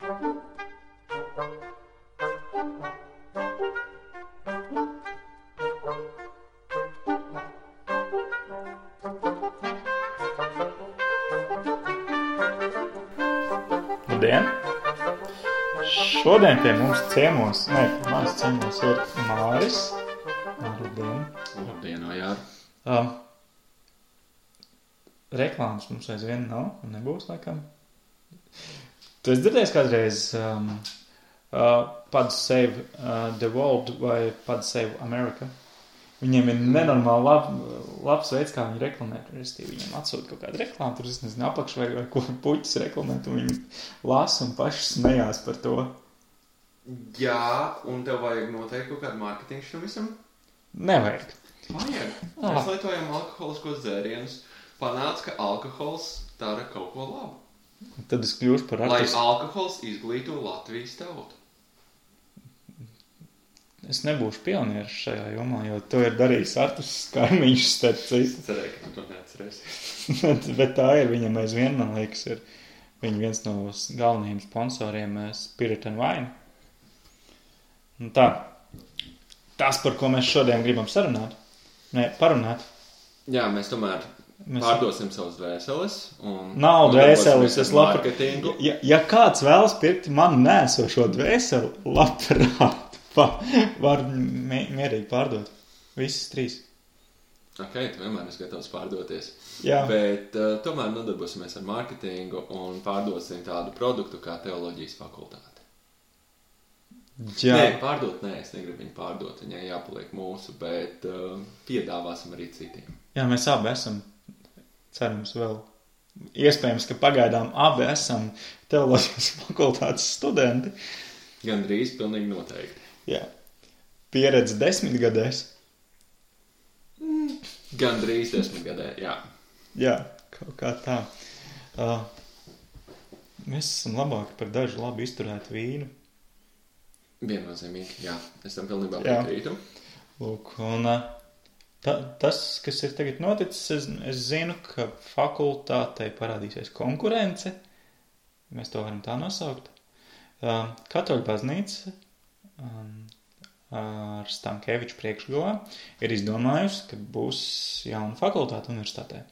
Labdien! Šodien pie mums ciemos, manas ciemos ir Māris. Labdien! Labdien, Ojār! Reklāmas mums aizvien nav un nebūs, laikam. Tu esi dzirdējis kādreiz Pod Save the World vai Pod Save America? Viņiem ir nenormāli labs veids, kā viņi reklamē. Viņiem atsūta kaut kādu reklāmu, tur es nezinu, apakš vai ko puķis reklamē, un viņi lasa un paši smējās par to. Jā, un tev vajag noteikti kaut kādu mārketingu šim visam? Nevajag. Vajag. Mēs lietojam alkoholiskos dzērienus. Panāc, ka alkohols dara kaut ko labu. Tad es kļūšu par artistu. Lai alkohols izglīto Latvijas tautu. Es nebūšu pionieris šajā jomā, jo to ir darījis artists kaimiņš starp citu. Es cerēju, ka tu to neatcerēsi. Bet tā ir, viņam aizvien, man liekas, ir viņa viens no galvenajiem sponsoriem Spirit and Wine. Un tā, tas, par ko mēs šodien gribam parunāt. Jā, mēs tomēr pārdosim savus dvēseles. Nav dvēseles, es marketingu. Ja kāds vēlas pirkt manu nēsošo dvēseli, labprāt. Var mierīgi pārdot. Visas 3. Ok, tu vienmēr esi gatavs pārdoties. Jā. Bet tomēr nodarbosimies ar mārketingu un pārdosim tādu produktu kā teoloģijas fakultāte. Jā. Es negribu viņu pārdot, viņai jāpaliek mūsu, bet piedāvāsim arī citiem. Jā, mēs abi esam, cerams vēl. Iespējams, ka pagaidām abi esam teoloģijas fakultātes studenti. Gandrīz pilnīgi noteikti. Jā. Pieredze 10 gadēs. Gandrīz 10 gadē, jā. Jā, kaut kā tā. Mēs esam labāki par dažu labi izturētu vīnu. Viennozīmīgi, jā. Es tam pilnībā piekrītu. Lūk, un tas, kas ir tagad noticis, es zinu, ka fakultātei parādīsies konkurence. Mēs to varam tā nosaukt. Katoļu baznīca ar Stankēviču priekšgalā ir izdomājusi, ka būs jauna fakultāte universitātē.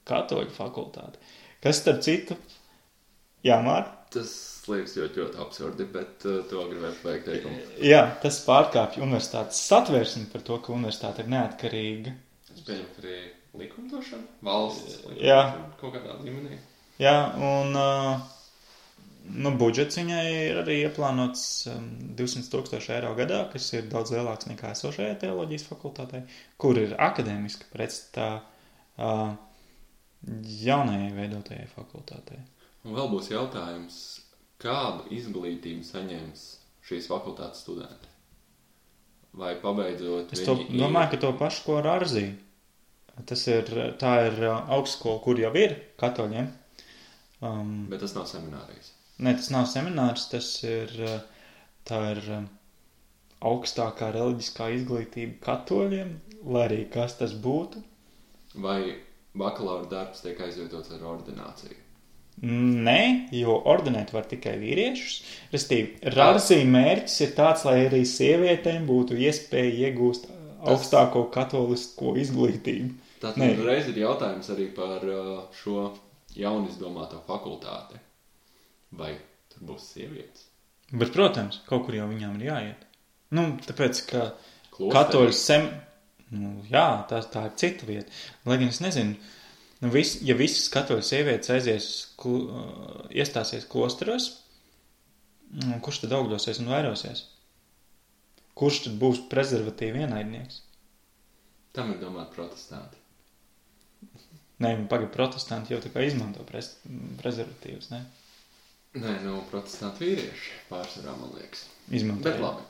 Katoļu fakultāte. Kas starp citu? Jā, Mār? Tas liekas ļoti absurdi, bet to gribētu vajag teikumu. Jā, tas pārkāpj universitātes satversmi par to, ka universitāte ir neatkarīga. Es pieņemu, ka arī likumdošana, valsts likumdošana, jā. Kaut kādā līmenī. Jā, un budžets viņai ir arī ieplānots 200,000 eiro gadā, kas ir daudz lielāks nekā esošajai teoloģijas fakultātei, kur ir akadēmiski pretstatā jaunajai veidotajai fakultātei. Un vēl būs jautājums, kādu izglītību saņems šīs fakultātes studenti? Vai pabeidzot Es domāju, ka to pašu, ko ar Arzī. Tā ir augstskola, kur jau ir katoļiem. Bet tas nav seminārijas. Nē, tas nav seminārs, tā ir augstākā reliģiskā izglītība katoļiem, lai arī kas tas būtu. Vai bakalaura darbs tiek aizvietots ar ordināciju? Nē, jo ordinēt var tikai vīriešus. Restīvi, Arzī mērķis ir tāds, lai arī sievietēm būtu iespēja iegūst augstāko katolisko izglītību. Tātad reiz ir jautājums arī par šo jaunizdomāto fakultāti. Vai tur būs sievietes? Bet, protams, kaut kur jau viņām ir jāiet. Tāpēc, ka Klosteris. katoļu jā, tā ir cita vieta. Lai gan es nezinu, ja visas katoļu sievietes iestāsies klosteros, kurš tad augļosies un vairosies? Kurš tad būs prezervatīvi ienaidnieks? Tam ir domāt protestanti. Nē, protestanti jau tā kā izmanto prezervatīvus, ne? Nē, protestanti vīrieši pārsvarā, man liekas. Izmanto. Bet labi,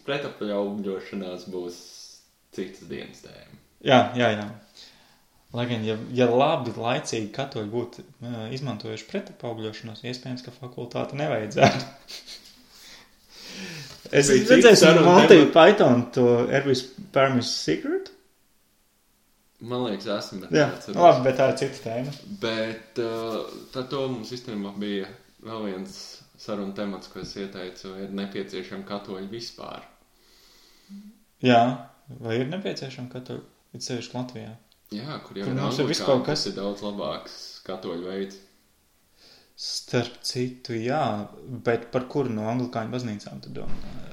pretapaugļošanās būs citas dienas tēma. Jā. Lai gan, ja labi laicīgi katoļi būtu izmantojuši pretapaugļošanos, iespējams, ka fakultāte nevajadzētu. Es redzēju Monty Python to Every Sperm is Secret. Man liekas, esmu, bet jā, labi, bet tā ir cita tēma. Bet tad to mums īstenībā bija vēl viens saruna temats, ko es ieteicu, ir nepieciešami katoļi vispār. Jā, vai ir nepieciešami katoļi? Ir sevišķi Latvijā. Jā, kur jau Kur ir mums ir viss anglikāņi, kaut kas. tas ir daudz labāks katoļu veids. Starp citu, jā, bet par kuru no anglikāņu baznīcām tu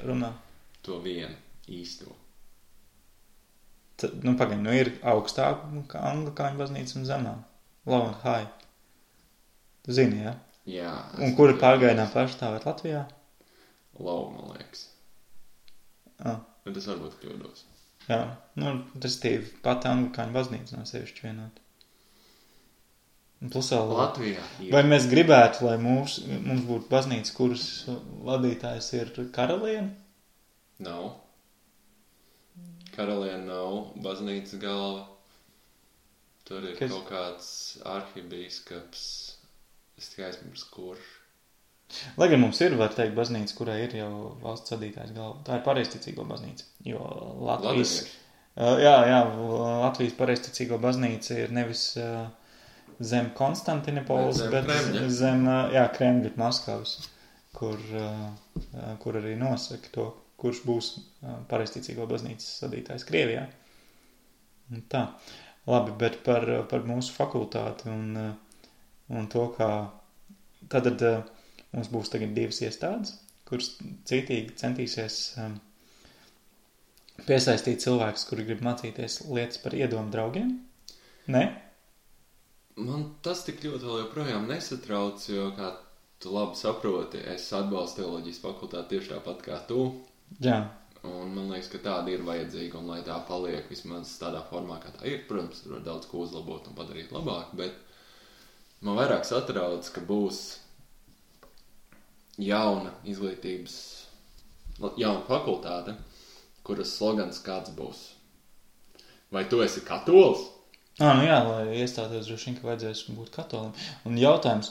runā? To vienu īsto. Tad, pagaid, ir augstāk kā anglikāņu baznīca un zemā. Low and high. Tu zini, jā? Jā. Un kura pārgaidā pārstāvēt Latvijā? Low, man liekas. Bet es varbūt kļūdos. Jā, tas ir pati anglikāņu baznīca no sevišķi vienot. Plus vēl Latvijā. Vai mēs gribētu, lai mums būtu baznīca, kuras vadītājs ir karaliene? Nav. Karaliene nav baznīcas galva. Tur ir kaut kāds arhibīskaps. Es tikai aizmirsu, kurš. Lai gan mums ir, var teikt, baznīca, kurai ir jau valsts vadītājs galva. Tā ir pareizticīgo baznīca. Jo Latvijas... Latvijas pareizticīgo baznīca ir nevis zem Konstantinopolis, bet zem Kremļa Maskavas, kur arī nosaka to, kurš būs pareizticīgo baznīcas vadītājs Krievijā. Tā. Labi, bet par mūsu fakultāti un to, kā tad mums būs tagad 2 iestādes, kuras cītīgi centīsies piesaistīt cilvēkus, kuri grib mācīties lietas par iedomu draugiem. Ne? Man tas tik ļoti vēl joprojām nesatrauc, jo, kā tu labi saproti, es atbalstu teoloģijas fakultāti tieši tāpat kā tu. Jā. Un man liekas, ka tāda ir vajadzīga, un lai tā paliek vismaz tādā formā, kā tā ir. Protams, tur var daudz ko uzlabot un padarīt labāk, bet man vairāk satrauc, ka būs jauna izglītības, jauna fakultāte, kuras slogans kāds būs. Vai tu esi katolis? Lai iestātos droši vien, ka vajadzēs būt katolim. Un jautājums,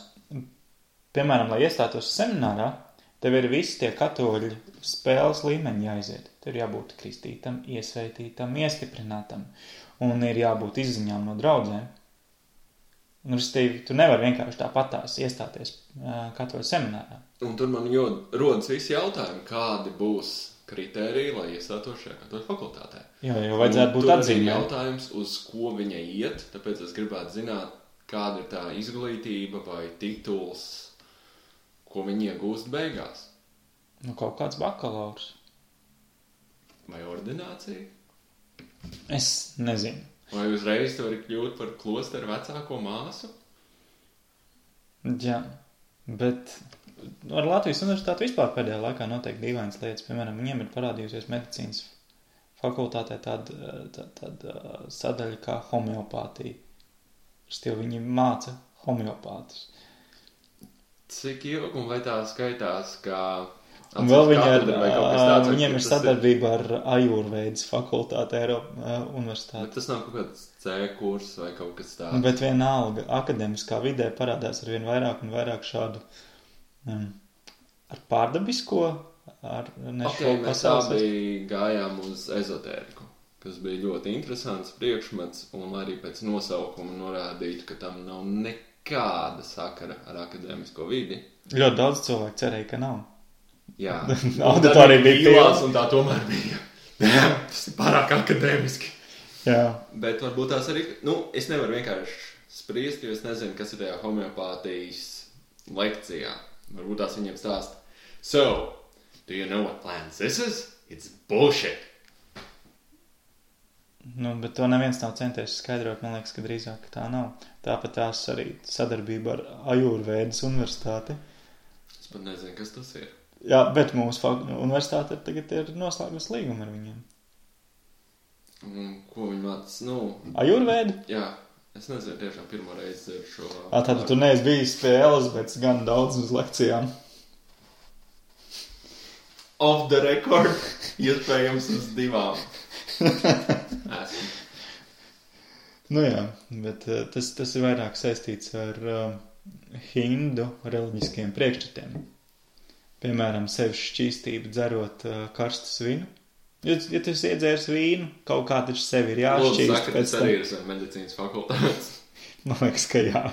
piemēram, lai iestātos seminārā, tev ir visi tie katoļi spēles līmeņi jāiziet. Tev ir jābūt kristītam, iesveitītam, iestiprinātam. Un ir jābūt izziņām no draudzēm. Un, restīvi, tu nevari vienkārši tāpatās iestāties katoļu seminārā. Un tur man rodas visi jautājumi, kādi būs kritēriji, lai iestātos šajā katoļu fakultātē. Jo vajadzētu būt atzīmē. Tur ir jautājums, uz ko viņa iet, tāpēc es gribētu zināt, kāda ir tā izglītība vai tituls, ko viņi iegūst beigās. Kaut kāds bakalaurs. Vai ordinācija? Es nezinu. Vai uzreiz tu vari kļūt par klosteru vecāko māsu? Jā, bet ar Latvijas universitāti vispār pēdējā laikā noteikti dīvainas lietas. Piemēram, viņiem ir parādījusies medicīnas fakultātē tāda sadaļa kā homeopātija. Viņi māca homeopātus. Cik ilgi un vai tā skaitās, kā... Un vēl viņiem ir sadarbība ar Ajurvēdas fakultāti Eiropas universitāti. Bet tas nav kaut kāds C kurs vai kaut kas tāds. Bet vienalga, akademiskā vidē parādās ar vien vairāk un vairāk šādu ar pārdabisko, mēs abi gājām uz ezotēriku, kas bija ļoti interesants priekšmets, un arī pēc nosaukuma norādītu, ka tam nav nekāda sakara ar akadēmisko vidi. Ļoti daudz cilvēku cerēja, ka nav. Jā, auditorija bija pilās, un tā tomēr bija. Tas ir pārāk akadēmiski. Jā. Bet varbūt tās arī, es nevaru vienkārši spriest, jo es nezinu, kas ir tajā homeopātijas lekcijā. Varbūt tās viņiem stāst. So, do you know what plants this is? It's bullshit. Bet to neviens nav centies skaidrot, man liekas, ka drīzāk tā nav. Tāpat tās arī sadarbība ar Ajurvēdas universitāti. Es pat nezinu, kas tas ir. Jā, bet mūsu universitāte tagad ir noslēgus līgumu ar viņiem. Ko viņi māca? Ajurvēda? Jā, es nezinu, tiešām pirmo reizi dzirdu šo... Tad tu neesi bijis pie Elizabetes gan daudz uz lekcijām. Off the record, iespējams uz 2. Esmu. Jā, bet tas ir vairāk saistīts ar hindu reliģiskiem priekšstatiem. Piemēram, sevis šķīstību dzerot karstas vinu. Ja tu esi iedzēris vīnu, kaut kā taču sevi ir jāšķīst. Lūdzu, tas arī ir medicīnas fakultātes. Man liekas, ka jā.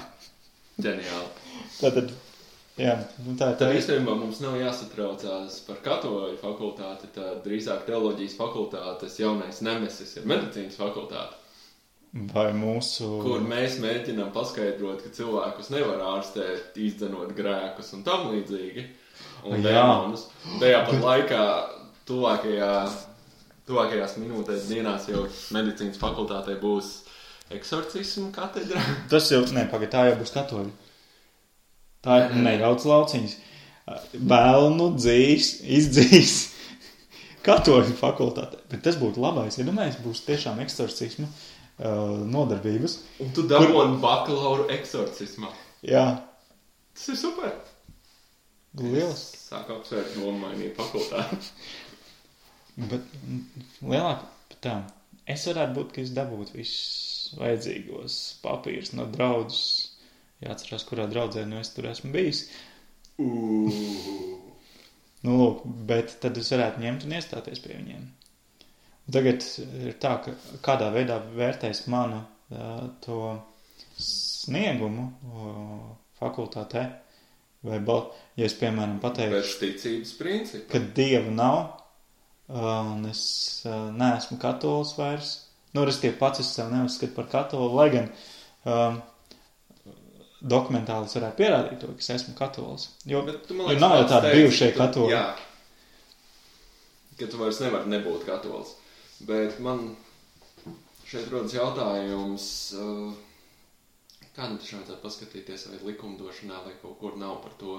Ģeniāli. Tātad Jā, tā tad īstenībā mums nav jāsatraucās par katoļu fakultāti, tad drīzāk teoloģijas fakultātes jaunais nemesis ir medicīnas fakultāte. Vai mūsu... Kur mēs mēģinām paskaidrot, ka cilvēkus nevar ārstēt, izdzenot grēkus un tam līdzīgi. Un dēmonus. Tajā pat laikā tuvākajās minūtēs dienās jau medicīnas fakultātē būs eksorcismu katedra. Tas jau, tā jau būs katoļi. Tā ir nejauc lauciņas. Velnu izdzīs katoļu fakultātē. Bet tas būtu labais, ja domājies, būs tiešām eksorcismu nodarbības. Un tu dabūni bakalauru eksorcismā. Jā. Tas ir super. Lielas. Sāku apsvērt nomainīt fakultāti. Bet lielāk es varētu būt, ka es dabūtu visus vajadzīgos papīrus no draudzes. Jāatcerās, kurā draudzē es tur esmu bijis. Nu, lūk, bet tad es varētu ņemt un iestāties pie viņiem. Tagad ir tā, ka kādā veidā vērtēs manu to sniegumu fakultātē, vai ja es, piemēram, pateikšu, bez ticības principa, ka Dieva nav, un es neesmu katolis vairs, es tie pats es sev neuzskatu par katoli, lai gan dokumentāli es varētu pierādīt to, ka es esmu katolis. Jo nav jau tādi bijušie katoli. Jā, ka tu vairs nevari nebūt katolis. Bet man šeit rodas jautājums, kā taču vajadzētu paskatīties vai likumdošanā vai kaut kur nav par to,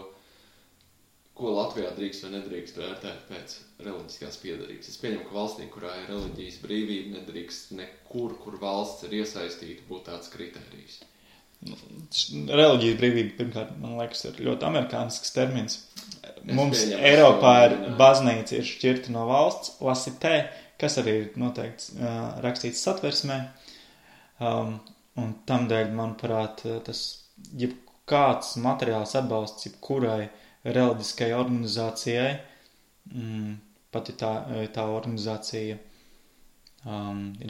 ko Latvijā drīkst vai nedrīkst vērtēt pēc reliģiskās piedarības. Es pieņemu, ka valstī, kurā ir reliģijas brīvība, nedrīkst nekur, kur valsts ir iesaistīta, būt tāds kritērijs. Reliģijas brīvība, pirmkārt, man liekas, ir ļoti amerikānisks termins. Mums Eiropā ir baznīca ir šķirta no valsts, lasitē, kas arī ir noteikti rakstīts satversmē. Un tamdēļ, manuprāt, tas jebkāds materiāls atbalsts jebkurai reliģiskai organizācijai, pat ja tā organizācija ir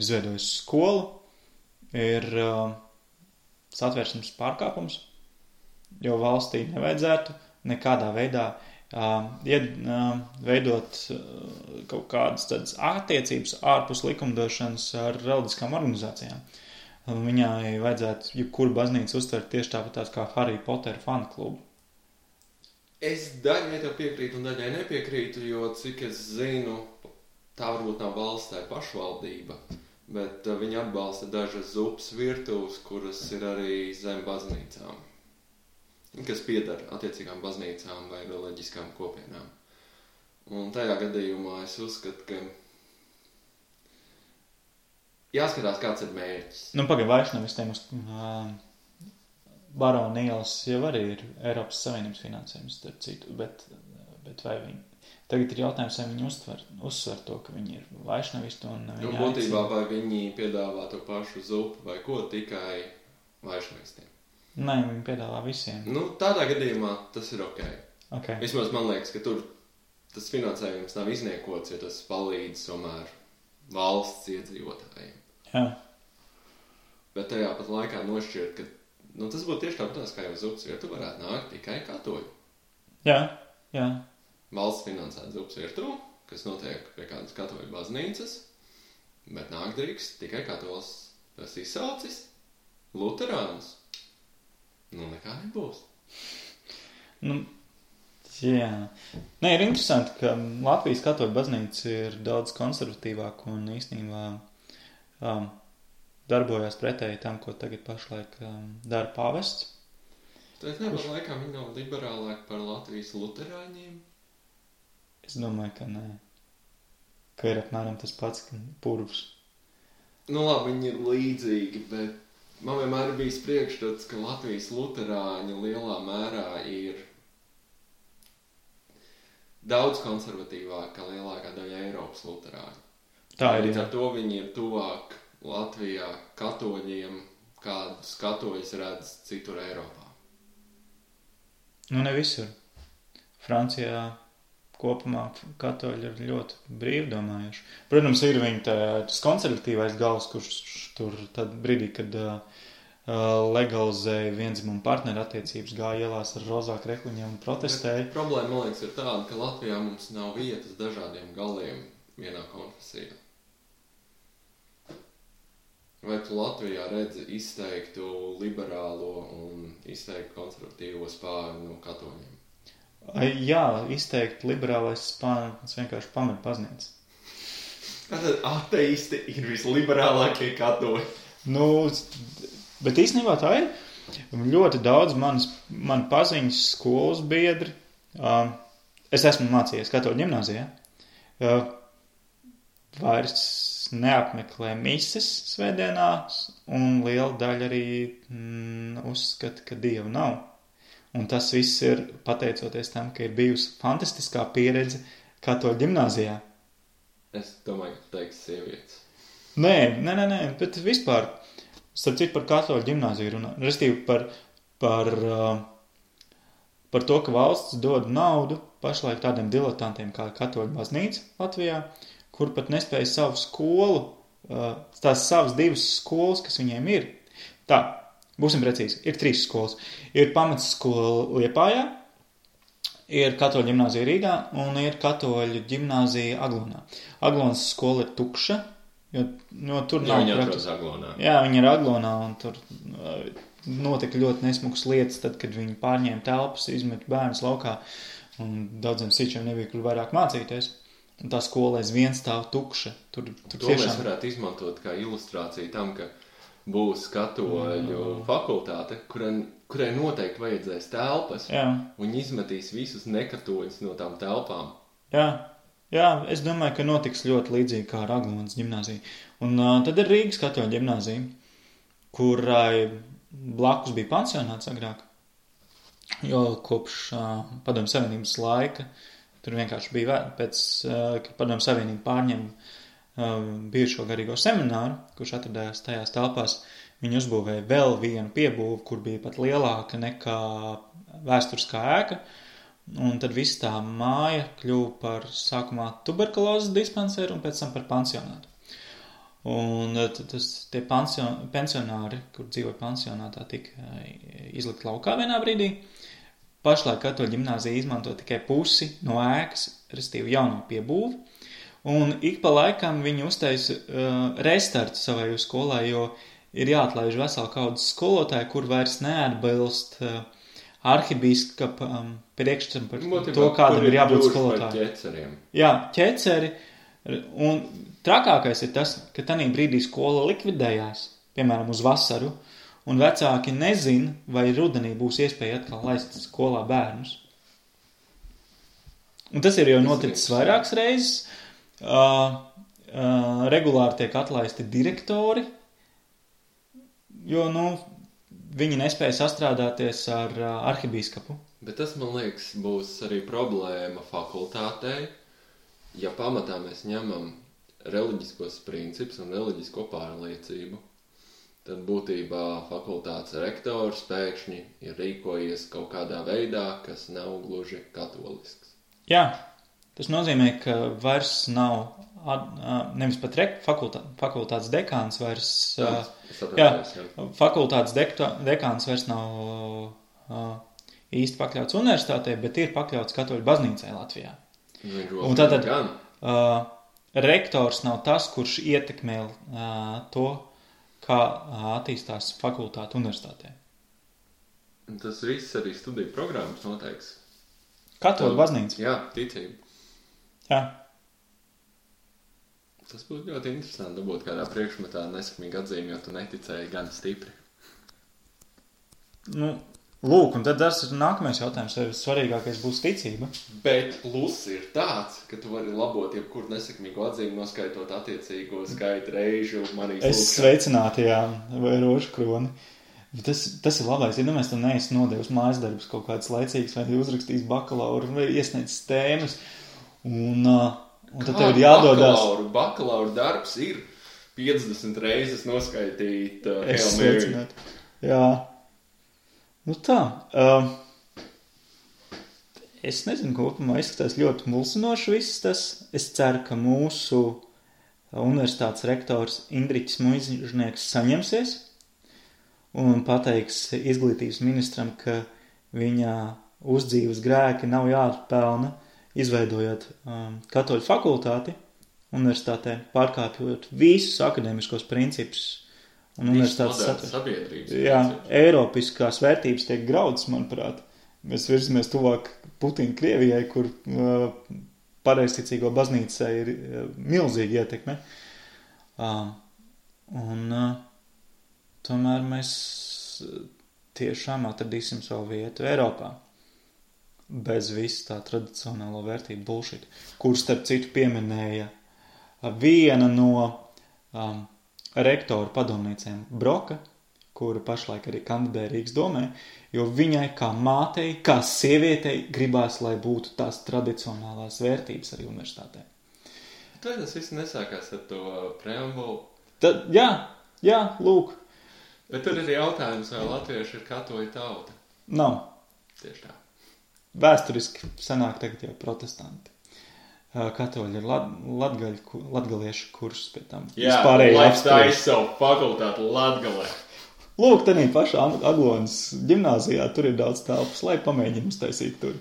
izveidojusi skolu, ir satversmes pārkāpums, jo valstī nevajadzētu nekādā veidā veidot kaut kādas tādas attiecības ārpus likumdošanas ar reliģiskām organizācijām. Viņai vajadzētu jebkuru baznīcu uztvert tieši tāpat kā Harry Potter fanu klubu. Es daļai tev piekrītu un daļai nepiekrītu, jo cik es zinu, tā varbūt nav valsts, tā ir pašvaldība, bet viņi atbalsta dažas zupas virtuves, kuras ir arī zem baznīcām, kas pieder attiecīgām baznīcām vai reliģiskām kopienām. Un tajā gadījumā es uzskatu, ka jāskatās, kāds ir mērķis. Vaišnavistiem uz Barona ielas jau arī ir Eiropas Savienības finansējums, starp citu, bet vai viņi... Tagad ir jautājums, vai viņi uzsver to, ka viņi ir vaišnavisti un viņi būtībā vai viņi piedāvā to pašu zupu vai ko tikai vaišnavistiem. Nē, viņi piedāvā visiem. Tādā gadījumā tas ir ok. Okay. Vismaz man liekas, ka tur tas finansējums nav izniekots, jo tas palīdz tomēr valsts iedzīvotājiem. Jā. Bet tajā pat laikā nošķirt, ka tas būtu tieši tāpēc, kā jau zupas virtu varētu nākt tikai katoļi. Jā. Valsts finansēt zupas virtu, kas notiek pie kādas katoļu baznīcas, bet nāk drīkst tikai katolis. Tas izsaucis luterānus. Nekā nebūs. Jā. Nē, ir interesanti, ka Latvijas katoļu baznīca ir daudz konservatīvāka un īstenībā darbojās pretēji tam, ko tagad pašlaik dara pāvests. Tad nepat laikā viņi nav liberālāki par Latvijas luterāņiem? Es domāju, ka nē. Ka ir apmēram tas pats purvs. Labi, viņi ir līdzīgi, bet man vienmēr bijis priekšstats, ka Latvijas luterāņi lielā mērā ir daudz konservatīvāk kā lielākā daļa Eiropas luterāņu. Tā ir. Līdz ar to viņi ir tuvāk Latvijā katoļiem, kādus katoļus redz citur Eiropā. Ne visur. Francijā kopumā katoļi ir ļoti brīvdomājuši. Protams, ir viņa tas konservatīvais gals, kurš tur tad brīdī, kad legalizēja viendzimumu partneru attiecības, gāja ielās ar rozā krekliņiem un protestēja. Bet problēma, man liekas, ir tāda, ka Latvijā mums nav vietas dažādiem galiem vienā konfesijā. Vai tu Latvijā redzi izteiktu liberālo un izteiktu konservatīvo spāru no katoļiem? Jā, izteikti liberālais spānis vienkārši pamet pazniec. Tātad ateisti ir visliberālākie katoļi. Bet īstenībā tā ir. Ļoti daudz man paziņas skolas biedri. Es esmu mācījies katoļu ģimnāzijā. Vairs neapmeklē mises svētdienās, un liela daļa arī uzskata, ka Dieva nav. Un tas viss ir pateicoties tam, ka ir bijusi fantastiskā pieredze katoļu ģimnāzijā. Es domāju, ka tu teiksi sievietes. Nē, bet vispār, starp citu par katoļu ģimnāziju runā. Restīvi par to, ka valsts dod naudu pašlaik tādiem diletantiem kā katoļu baznīca Latvijā, kur pat nespēja savu skolu, tās savas 2 skolas, kas viņiem ir. Tā, būsim precīzi, ir 3 skolas. Ir pamatskola Liepājā, ir katoļu ģimnāzija Rīgā un ir katoļu ģimnāzija Aglonā. Aglonas skola ir tukša, jo tur nav... Viņa atrodas Aglonā. Jā, viņa ir Aglonā un tur notika ļoti nesmukas lietas, tad, kad viņi pārņēma telpas, izmet bērnus laukā un daudziem sīčiem nebija, kur vairāk mācīties. Un tā skola aizvien stāv tukša. Tur to tiešām... mēs varētu izmantot kā ilustrāciju tam, ka būs katoļu fakultāte, kurai noteikti vajadzēs telpas, un izmetīs visus nekatoļus no tām telpām. Jā, es domāju, ka notiks ļoti līdzīgi kā ar Aglonas ģimnāziju. Un tad ir Rīgas katoļu ģimnāzija, kurai blakus bija pansionāts agrāk, jo kopš Padomju Savienības laika tur vienkārši bija pēc, kad Padomju Savienība pārņēma bijušo garīgo semināru, kurš atradājās tajās telpās. Viņi uzbūvēja vēl vienu piebūvu, kur bija pat lielāka nekā vēsturiskā ēka. Un tad viss tā māja kļuva par sākumā tuberkulozes dispanseru un pēc tam par pansionātu. Un tie pensionāri, kur dzīvoja pansionātā, tika izlikt laukā vienā brīdī. Pašlaik katoļu ģimnāzija izmanto tikai pusi no ēkas, restīvi jauno piebūvi, un ik pa laikam viņi uztaisa restartu savai skolai, jo ir jāatlaiž vesela kaudzes skolotāji, kur vairs neatbilst arhibīskapa priekšstam par to, kādam ir jābūt skolotājiem. Jā, ķeceri, un trakākais ir tas, ka tanī brīdī skola likvidējās, piemēram, uz vasaru, un vecāki nezin, vai rudenī būs iespēja atkal laist skolā bērnus. Un tas ir jau noticis vairākas reizes. Regulāri tiek atlaisti direktori, jo, viņi nespēja sastrādāties ar arhibīskapu. Bet tas, man liekas, būs arī problēma fakultātei, ja pamatā mēs ņemam reliģiskos principus un reliģisko pārliecību. Tad būtībā fakultātes rektors pēkšņi ir rīkojies kaut kādā veidā, kas nav gluži katolisks. Jā, tas nozīmē, ka vairs nav, nevis pat fakultātes dekāns vairs, fakultātes dekāns vairs nav īsti pakļauts universitātei, bet ir pakļauts katoļu baznīcai Latvijā. Un tātad rektors nav tas, kurš ietekmē to, kā attīstās fakultāte universitātē. Tas viss arī studiju programmas noteiks. Katoļu baznīca. Jā, ticība. Jā. Tas būtu ļoti interesanti dabūt kādā priekšmetā nesakmīgi atzīmi, jo tu neticēji gan stipri. Lūk, un tad tas ir nākamais jautājums, vai svarīgākais būs ticība. Bet pluss ir tāds, ka tu vari labot jebkuru nesakmīgu atzīmi, noskaitot attiecīgo skaitu reižu. Es sveicināti, jā, vai rožu kroni. Tas ir labais, ja mēs tam neesi nodevis mājas darbus kaut kāds laicīgs, vai uzrakstījis bakalauru, vai iesniedzis tēmas, un tad tev ir jādodās. Bakalauru darbs ir 50 reizes noskaitīt Hail Mary. Jā. Tā. Es nezinu, kopumā izskatās ļoti mulsinoši viss tas. Es ceru, ka mūsu universitātes rektors Indriķis Muižnieks saņemsies un pateiks izglītības ministram, ka viņa uzdzīves grēki nav jāatpelna, izveidojot katoļu fakultāti universitātē, pārkāpjot visus akadēmiskos principus un universitātes sabiedrības. Jā, eiropiskās vērtības tiek graudas, manuprāt. Mēs virzamies tuvāk Putina Krievijai, kur pareizticīgo baznīcai ir milzīga ietekme. Tomēr mēs tiešām atradīsim savu vietu Eiropā. Bez visu tā tradicionālo vērtību bullshit, kur starp citu pieminēja viena no rektoru padomniecēm Broka, kura pašlaik arī kandidē Rīgas domē, jo viņai kā mātei, kā sievietei gribās, lai būtu tās tradicionālās vērtības arī universitātē. Tad tas viss nesākās ar to preambulu. Jā, lūk. Bet tur ir jautājums, vai latvieši ir katoļu tauta? Nav. Tieši tā. Vēsturiski sanāk tagad jau protestanti. Katoļi ir latgaliešu kursus pie tam. Jā, laiks taisa savu fakultātu Latgalē. Lūk, tenī pašā Aglonas ģimnāzijā tur ir daudz telpas, lai pamēģinu uztaisīt tur.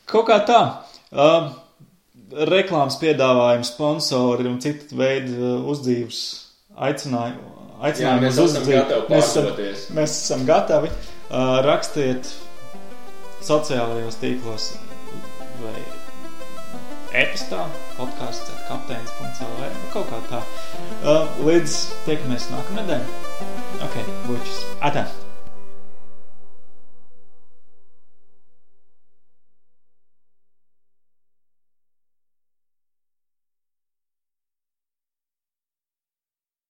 Kaut kā tā. Reklāmas piedāvājumi, sponsori un citu veidu uzdzīves aicinājumi uz uzdzīvi. Mēs esam gatavi. Rakstiet sociālajos tīklos vai e-pastā, podcasts@kapteinis.lv, kaut kā tā. Līdz tiekamies nākamnedēļ. Ok, bučus. Atā!